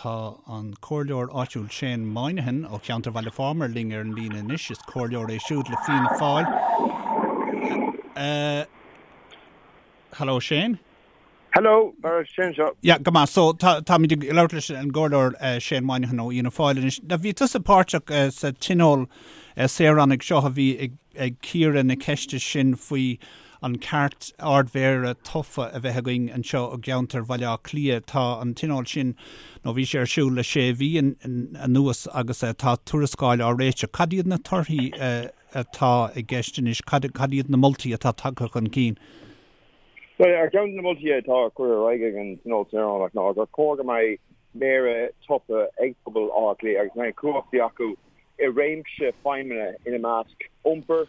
Tá an comhairleoir áitiúil Shane Moynihan ó cheantar Bhaile Phámar linn ar an líne anois. Is comhairleoir é siúd le Fianna Fáil. Hello Shane. Hello, Barra, Shane anseo. Yeah, go maith. So tá táimid ag labhairt leis an gcomhairleoir Shane Moynihan ó Fhianna Fáil anois. Now bhí tusa páirteach sa tionól saoránaigh seo a bhí ag ag cíoradh na ceiste sin faoi an ceart Ard-Mhéara tofa a bheith againn anseo i gceantar Bhaile Átha Cliath. Tá an tionól sin, nó bhí sé ar siúl le sé mhí anuas agus tá tuarascáil á réiteach. Cad iad na torthaí atá i gceist anois? Cad iad na moltaí atá tagtha chun cinn? Bhuel, ar cheann de na moltaí atá curtha ar aghaidh ag an Tionól Saoránach ná gur chóir go mbeidh Méara tofa ag pobal Átha Cliath agus go mbeidh cumhachtaí acu i réimse feidhmeanna ina measc iompar,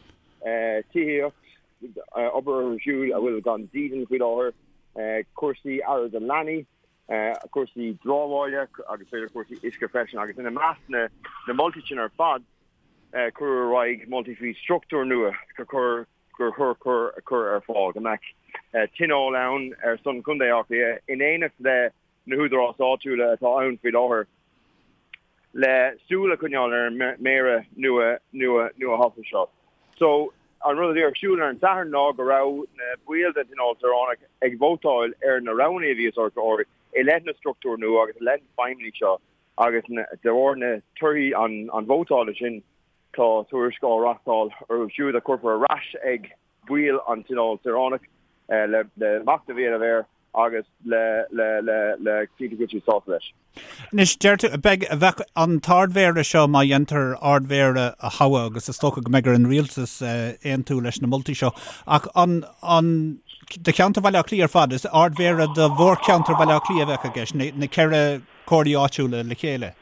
tithíocht, obair orthu siúd a bhfuil gan dídean faoi láthair, cúrsaí aire do leanaí, cúrsaí dramhaíola agus b'fhéidir cúrsaí uisce freisin. Agus ina measc na moltaí sin ar fad, cuireadh ar aghaidh moltaí faoi struchtúr nua gur chóir gur chóir a chur ar fáil, go mbeadh tionól ann ar son Chontae Átha Cliath in éineacht le na húdaráis áitiúla atá ann faoi láthair le súil a choinneáil ar an méara nua nua nuathofa seo. So, an rud a bhí ar siúl ar an Satharn ná go raibh na baill den Tionól Saoránach ag vótáil ar na roghanna a bhí os ár gcomhair i leith na struchtúr nua agus i leith na feidhmeanna seo agus de bharr na torthaí an vótála sin Tá tuairisc á reachtáil orthu siúd a chuirfear ar ais ag baill an Tionóil Saoránach le machnamh a dhéanamh air agus le cinntiú go bhfuil siad sásta leis. Anois, deir tú, beidh, bheadh an tArd-Mhéara seo, má dhéantar Ard-Mhéara a thoghadh, agus is dócha go mbeidh ar an Rialtas aontú leis na moltaí seo, ach an, an, do cheantar Bhaile Átha Cliath ar fad, is Ard-Mhéara do mhórcheantar Bhaile Átha Cliath a bheadh i gceist, na, na ceithre comhairlí áitiúla le chéile?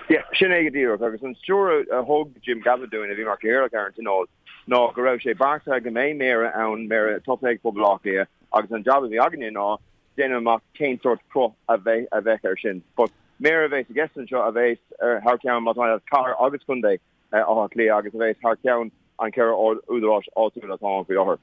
Yeah, sin é go díreach. Agus an stiúir a thug Jim Gavin dúinn, a bhí mar chathaoirleach ar an Tionól, ná go raibh sé beartaithe go mbeidh méara ann, méara tofa ag pobal Átha Cliath, agus an jab a bhí againne ná déanamh amach cén sórt cruth a bheidh a bheadh air sin. But méara a bheas i gceist anseo a bheas ar thar ceann, más maith leat, cathair agus contae Átha Cliath agus a bheas thar ceann an cheithre údaráis áitiúil atá ann faoi láthair.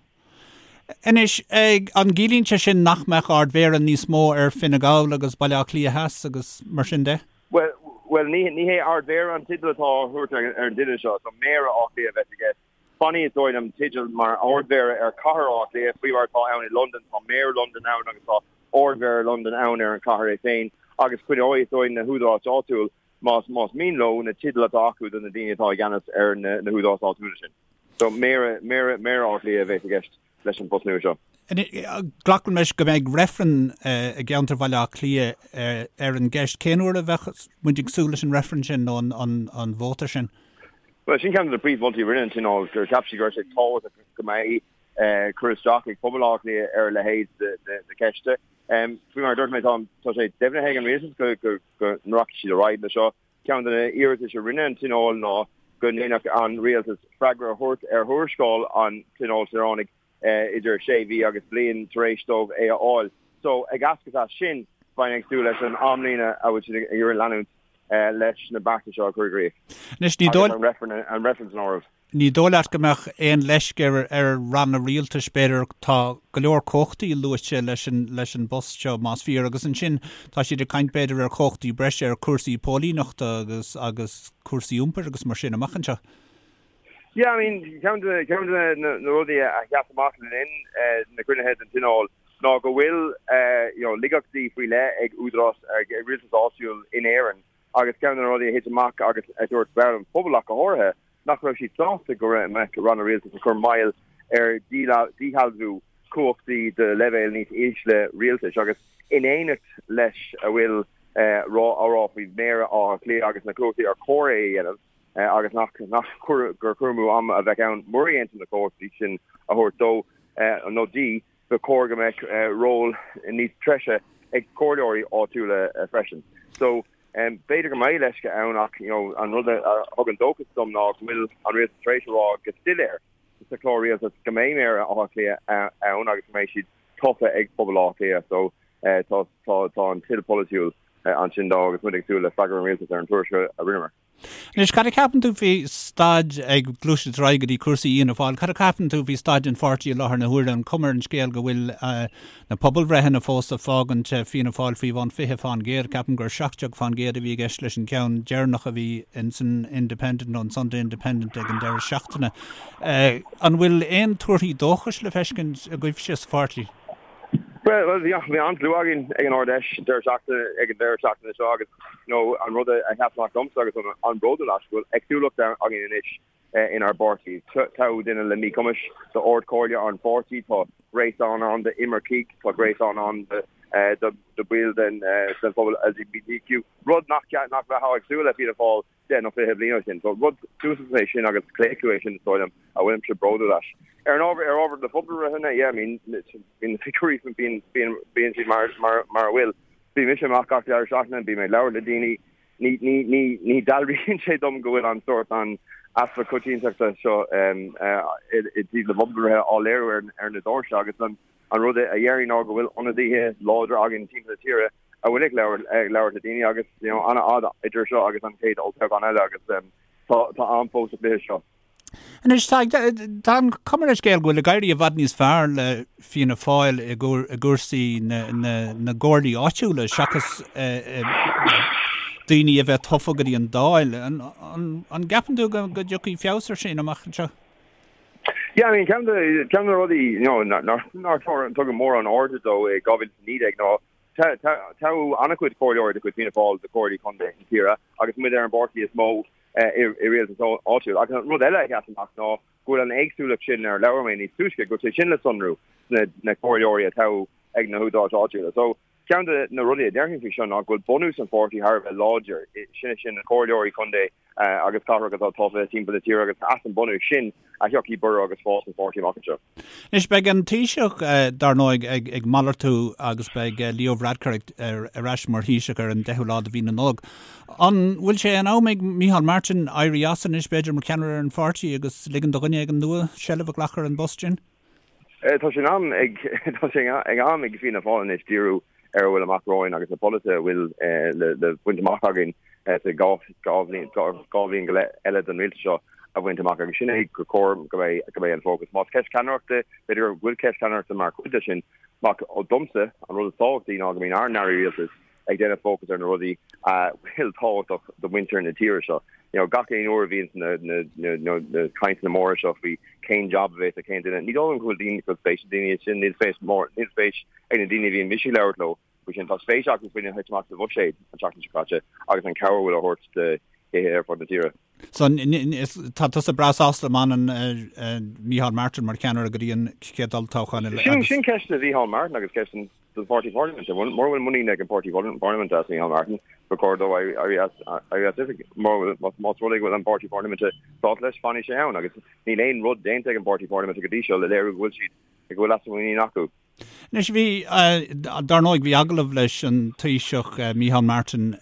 Anois, an gciallaíonn sé sin nach mbeadh Ard-Mhéara níos mó ar Fine Gall agus Baile Átha Cliath Theas agus mar sin de? Bhuel, bhuel, ní, ní hé Ard-Mhéara an teideal atá á thabhairt ar an duine seo, so Méara Átha Cliath a bheas i gceist. Fanfaidh, is dóigh liom, teideal mar Ard-Mhéara ar chathair Átha Cliath, faoi mar atá ann i Londain, tá Méara Londan ann agus tá Ard-Mhéara Londan ann ar an chathair é féin, agus coinneoidh, is dóigh, na húdaráis áitiúil, más, más mian leo, na teidil atá acu do na daoine atá i gceannas ar na, na húdaráis áitiúla sin. So, Méara, Méara, Méara Átha Cliath a bheas i gceist leis an bpost nua seo. Glacaim leis go mbeidh reifreann i gceantar Bhaile Átha Cliath ar an gceist. Cén uair a bheadh muid ag súil leis an reifreann sin nó an vóta sin? Bhuel, sin ceann de na príomh-mholtaí a rinne an Tionól, gur cheap siad go raibh sé tábhachtach go mbeidh cur isteach ag pobal Átha Cliath ar a leithéid de cheiste. Faoi mar a dúirt mé, tá sé deimhnithe ag an rialtas go rachaidh siad ar aghaidh leis seo. Ceann de na hiarratais a rinne an Tionól ná go ndéanfadh an rialtas freagra a thabhairt ar thuarascáil an Tionóil Saoránaigh idir sé mhí agus bliain tar éis dóibh é a fháil. So, ag eascairt as sin, bheinn ag súil leis an amlíne a bhfuil siad ag iarraidh leanúint leis na bearta seo a chur i gcrích. Anois, ní dóigh. Agus an reifreann san áireamh. Ní dóigh leat go mbeadh aon leisce ar ar ranna rialtais, b'fhéidir, tá go leor cumhachtaí luaite leis an leis an bpost seo, más fíor, agus ansin tá siad ag caint b'fhéidir ar chumhachtaí breise ar chúrsaí póilíneachta agus agus cúrsaí iompair agus mar sin amach anseo. Yeah, I mean, ceann de ceann de na na rudaí a sheas amach le linn na gcruinnithe den Tionól ná go bhfuil you know laigeachtaí faoi leith ag údarás ag rialtas áitiúil in Éirinn Agus ceann de na rudaí a thit amach agus a dúirt baill an phobail ach go háirithe, nach raibh siad sásta go mbeadh ranna rialtais ag cur moill ar dhíshealbhú cumhachtaí do leibhéil níos ísle rialtais agus in éineacht leis a bhfuil á rá faoi Mhéara Átha Cliath agus na cumhachtaí ar chóir é a dhéanamh agus nach gur cur amú ama a bheadh ann mura ndéantar na cumhachtaí sin a thabhairt dó nó di. Ba chóir go mbeadh ról níos treise ag comhairleoirí áitiúla freisin. So, b'fhéidir go mbeidh leisce ann ach you know an rud a thugann dóchas dom ná go bhfuil an rialtas tar éis a rá go soiléir sa chlár rialtais go mbeidh Méara Átha Cliath ann agus go mbeidh siad tofa ag pobal Átha Cliath. So, tá tá tá an toil polaitiúil. ansin dó agus muid ag súil le freagra an Rialtais ar an tuairisc a rinneamar. Anois, cad a cheapann tú faoi staid, ag gluaiseacht ar aghaidh go dtí cúrsaí Fhianna Fáil, cad a cheapann tú faoi staid an pháirtí i láthair na huaire, an cuma ar an scéal go bhfuil na pobalbhreitheanna fós ag fágaint Fianna Fáil faoi bhun 20%, ceapaim gur 17% a bhí i gceist leis an gceann deireanach a bhí ins an Independent nó an Sunday Independent ag an deireadh seachtaine. An bhfuil aon tuarthaí dóchais le feiscint agaibhse sa pháirtí? Bhuel, bhí an-slua againn ag an Ard-Fheis deireadh seachtaine, ag an deireadh seachtaine seo agus you know, an rud a sheas amach domsa agus an an-bhródúil as go bhfuil éagsúlacht againn anois inár bpáirtí. Toghadh duine le míchumais d'Ard-Chomhairle an pháirtí, tá gréasán ann d'imircigh, tá gréasán ann do do bhaill den den phobal LGBTQ, rud nach nach mbeifeá ag súil le Fianna Fáil 10 nó 20 bliain ó shin. So rud suntasach é sin agus claochlú é sin is dóigh liom a bhfuilimse bródúil as. Ar an ábhar ar ábhar na pobalbhreitheanna, yeah, I mean, bíonn na figiúirí bíonn bíonn bíonn siad mar mar mar a bhfuil. Bíonn mise amach gach deireadh seachtaine, bím ag labhairt le daoine, ní ní ní ní dealraíonn sé dom go bhfuil an sórt an easpa coitiantachta seo um, uh, i i dtaobh na bpobalbhreithe á léiriú ar ar na doirse agus an an rud a dhéarfainn ná go bhfuil ionadaithe láidre againn timpeall na tíre a bhfuil ag labhairt le daoine agus you know an-fhad idir seo agus an chéad olltoghchán eile agus tá tá am fós sa chluiche seo. Anois tá tá an chuma ar an scéal go bhfuil ag éirí i bhfad níos fearr le Fianna Fáil i gcúrsaí na na na gcomhairlí áitiúla seachas daoine a bheith tofa go dtí an Dáil. An an an gceapann tú go go dtiocfaidh feabhas ar sin amach anseo? Yeah, I mean, ceann de ceann de na rudaí you know nár nár tugadh mórán airde dó i 2019 ná Toghadh an-chuid comhairleoirí de chuid Fianna Fáil do chomhairlí contae na tíre agus muid ar an bpáirtí is mó i rialtas áitiúil. Agus an rud eile a sheas amach ná go bhfuil an éagsúlacht sin ar labhair mé níos túisce, go bhfuil sé sin le sonrú sna na comhairleoirí a toghadh ag na húdaráis áitiúla. So, ceann de na rudaí a déarfainn faoi seo ná go bhfuil bunús an pháirtí thar a bheith láidir, sin sin na comhairleoirí contae agus cathrach atá tofa timpeall na tíre agus as an bunús sin a thiocfaidh borradh agus fás an pháirtí amach anseo. Anois, beidh an Taoiseach, dar ndóigh, ag malartú agus beidh Leo Varadkar ar ais mar Thaoiseach ar an 10ú lá de mhí na Nollag. An bhfuil sé in am ag Micheál Martin éirí as anois, b'fhéidir, mar cheannaire ar an pháirtí agus ligean do dhuine éigin nua seilbh a ghlacadh ar an bpost sin? Tá sé in am ag tá sé in am ag Fianna Fáil anois díriú ar a bhfuil amach romhainn agus na polasaithe a bhfuil le baint amach againn sa 2 bhliain go leith eile den rialtas seo a bhaint amach agus sin é gur chóir go mbeidh go mbeidh an fócas. Más ceist ceannaireachta, b'fhéidir go bhfuil ceist ceannaireachta mar chuid de sin, ach domsa an rud is tábhachtaí ná go mbíonn ár n-airí rialtais ag déanamh fócas ar na rudaí a bhfuil tábhachtach do mhuintir na tíre seo. You know, gach aon uair a bhíonn na, na, na, na, na cainteanna móra seo faoi cén jab a bheas ag cén duine, ní dóigh liom go bhfuil daoine, go bhfuil spéis ag daoine sin, níl spéis mór, níl spéis ag na daoine a bhíonn mise ag labhairt leo faoi sin. Tá spéis acu faoina thit amach sa bhuiséad an tseachtain seo caite agus an cabhair a bhfuil á thabhairt do thithe ar fud na tíre. So, tá tusa breá sásta má fhanann Micheál Martin mar cheannaire go dtí an chéad olltoghchán eile agus. Sin ceist do Mhicheál Martin agus ceist don pháirtí parlaiminte. Mura bhfuil muinín ag an bpáirtí parlaiminte as Micheál Martin, ba chóir dó éirí as oifig. Más rud é go bhfuil an páirtí parlaiminte sásta leis, fanfaidh sé ann agus níl aon rud déanta ag an bpáirtí parlaiminte go dtí seo le léiriú go bhfuil siad go bhfuil easpa muiníne acu. Anois bhí, dar ndóigh, bhí agallamh leis an Taoiseach Micheál Martin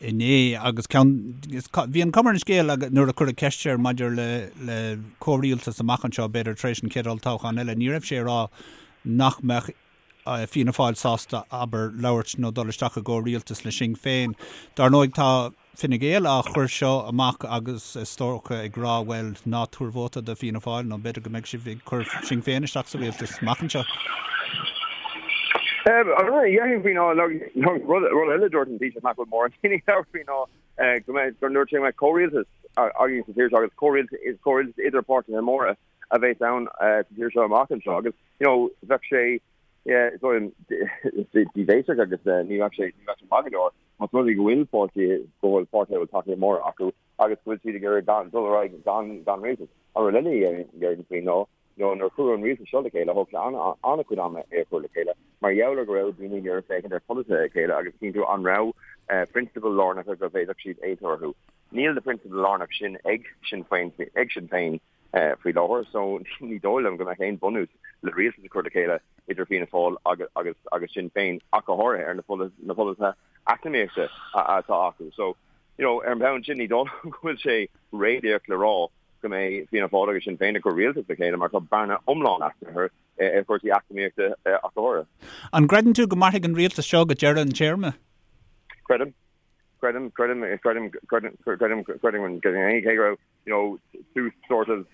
inné agus ceann, bhí an chuma ar an scéal nuair a cuireadh ceist air maidir le le comhrialtas amach anseo, b'fhéidir tar éis an chéad olltoghchán eile, ní raibh sé ag rá nach mbeadh Fianna Fáil sásta, abair, labhairt nó dul isteach i gcomhrialtas le Sinn Féin. Dar ndóigh tá. Fine Gael á chur seo amach agus is dócha ag rá bhuel ná tabhair vóta do Fianna Fáil nó b'fhéidir go mbeidh sibh ag cur Sinn Féin isteach sa rialtas amach anseo. An rud a dhéarfainn faoi ná rud eile a dúirt an Taoiseach nach bhfuil mórán daoine ag labhairt faoi ná go mbeidh gur ndúirt sé go mbeidh comhrialtas againn sa tír seo agus comhrialtas comhrialtas idir páirtithe móra a bheas ann sa tír seo amach anseo agus you know bheadh sé yeah is dóigh liom díbhéasach agus ní bheadh sé ní bheadh sé maith go leor. Más rud é go bhfuil páirtí, go bhfuil páirtithe a bhfuil tacaíocht mór acu agus go bhfuil siad ag iarraidh gan, dul ar aghaidh gan, gan rialtas. An rud eile a dhéarfainn faoi ná, nó nuair a cuireadh an rialtas seo le chéile, thóg sé an-chuid ama é a chur le chéile, mar gheall ar go raibh daoine ag iarraidh féachaint ar pholasaithe a chéile agus cinntiú an raibh prionsabail lárnacha go bhféadfadh siad aontú orthu. Níl na prionsabail lárnacha sin ag Sinn Féin, ag Sinn Féin faoi láthair so ní dóigh liom go mbeadh aon bhunús le rialtas a chur le chéile idir Fianna Fáil agus agus agus Sinn Féin ach go háirithe ar na na polasaithe eacnamaíochta atá acu. So you know ar an mbonn sin ní dóigh liom go bhfuil sé réalaíoch le rá go mbeidh Fianna Fáil agus Sinn Féin ag cur rialtas le chéile mar tá bearna iomlán eatarthu ar chúrsaí eacnamaíochta ach go háirithe. An gcreideann tú go mairfidh an rialtas seo go deireadh an téarma? Creidim. Creidim, creidim, creidim, creidim, creidim, creidim, creidim, cé go raibh, you know, tús sort of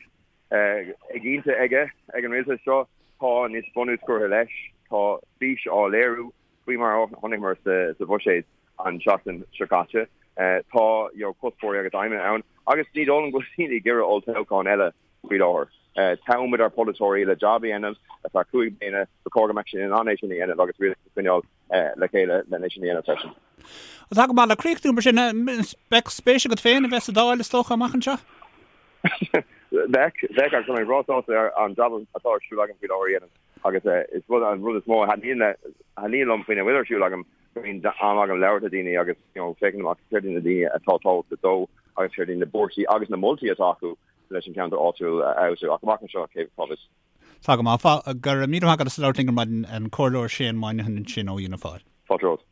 éiginnte aige ag an rialtas seo, tá níos bunús curtha leis, tá fís á léiriú faoi mar a chonaiceamar sa bhuiséad an tseachtain seo caite. Tá, you know, cuspóirí agus aidhmeanna ann agus ní dóigh liom go bhfuil daoine ag iarraidh olltoghchán eile faoi láthair. Toghfaimid ár bpolaiteoirí le jab a dhéanamh ar feadh 5 bliana, ba chóir go mbeadh siad in ann é sin a dhéanamh agus rialtas a choinneáil le chéile lena é sin a dhéanamh freisin. Tá go maith le críochnú mar sin, beidh spéis agat féin a bheith sa Dáil is dócha amach anseo? Bheadh, bheadh agus tá mé breá sásta ar an jab atá ar siúl agam faoi láthair a dhéanamh agus is rud an rud is mó a thaitníonn liom faoina bhfuil ar siúl agam go mbíonn am agam labhairt le daoine agus you know féachaint amach céard iad na daoine atá tábhachtach dó agus céard iad na buarthaí agus na moltaí atá acu leis an ceantar áitiúil a fheabhsú ach amach anseo cé cá bhfios. Tá go maith. Go raibh míle maith agat as labhairt linn ar maidin, an Comhairleoir Shane Moynihan ansin ó Fhianna Fáil. Fáilte romhat.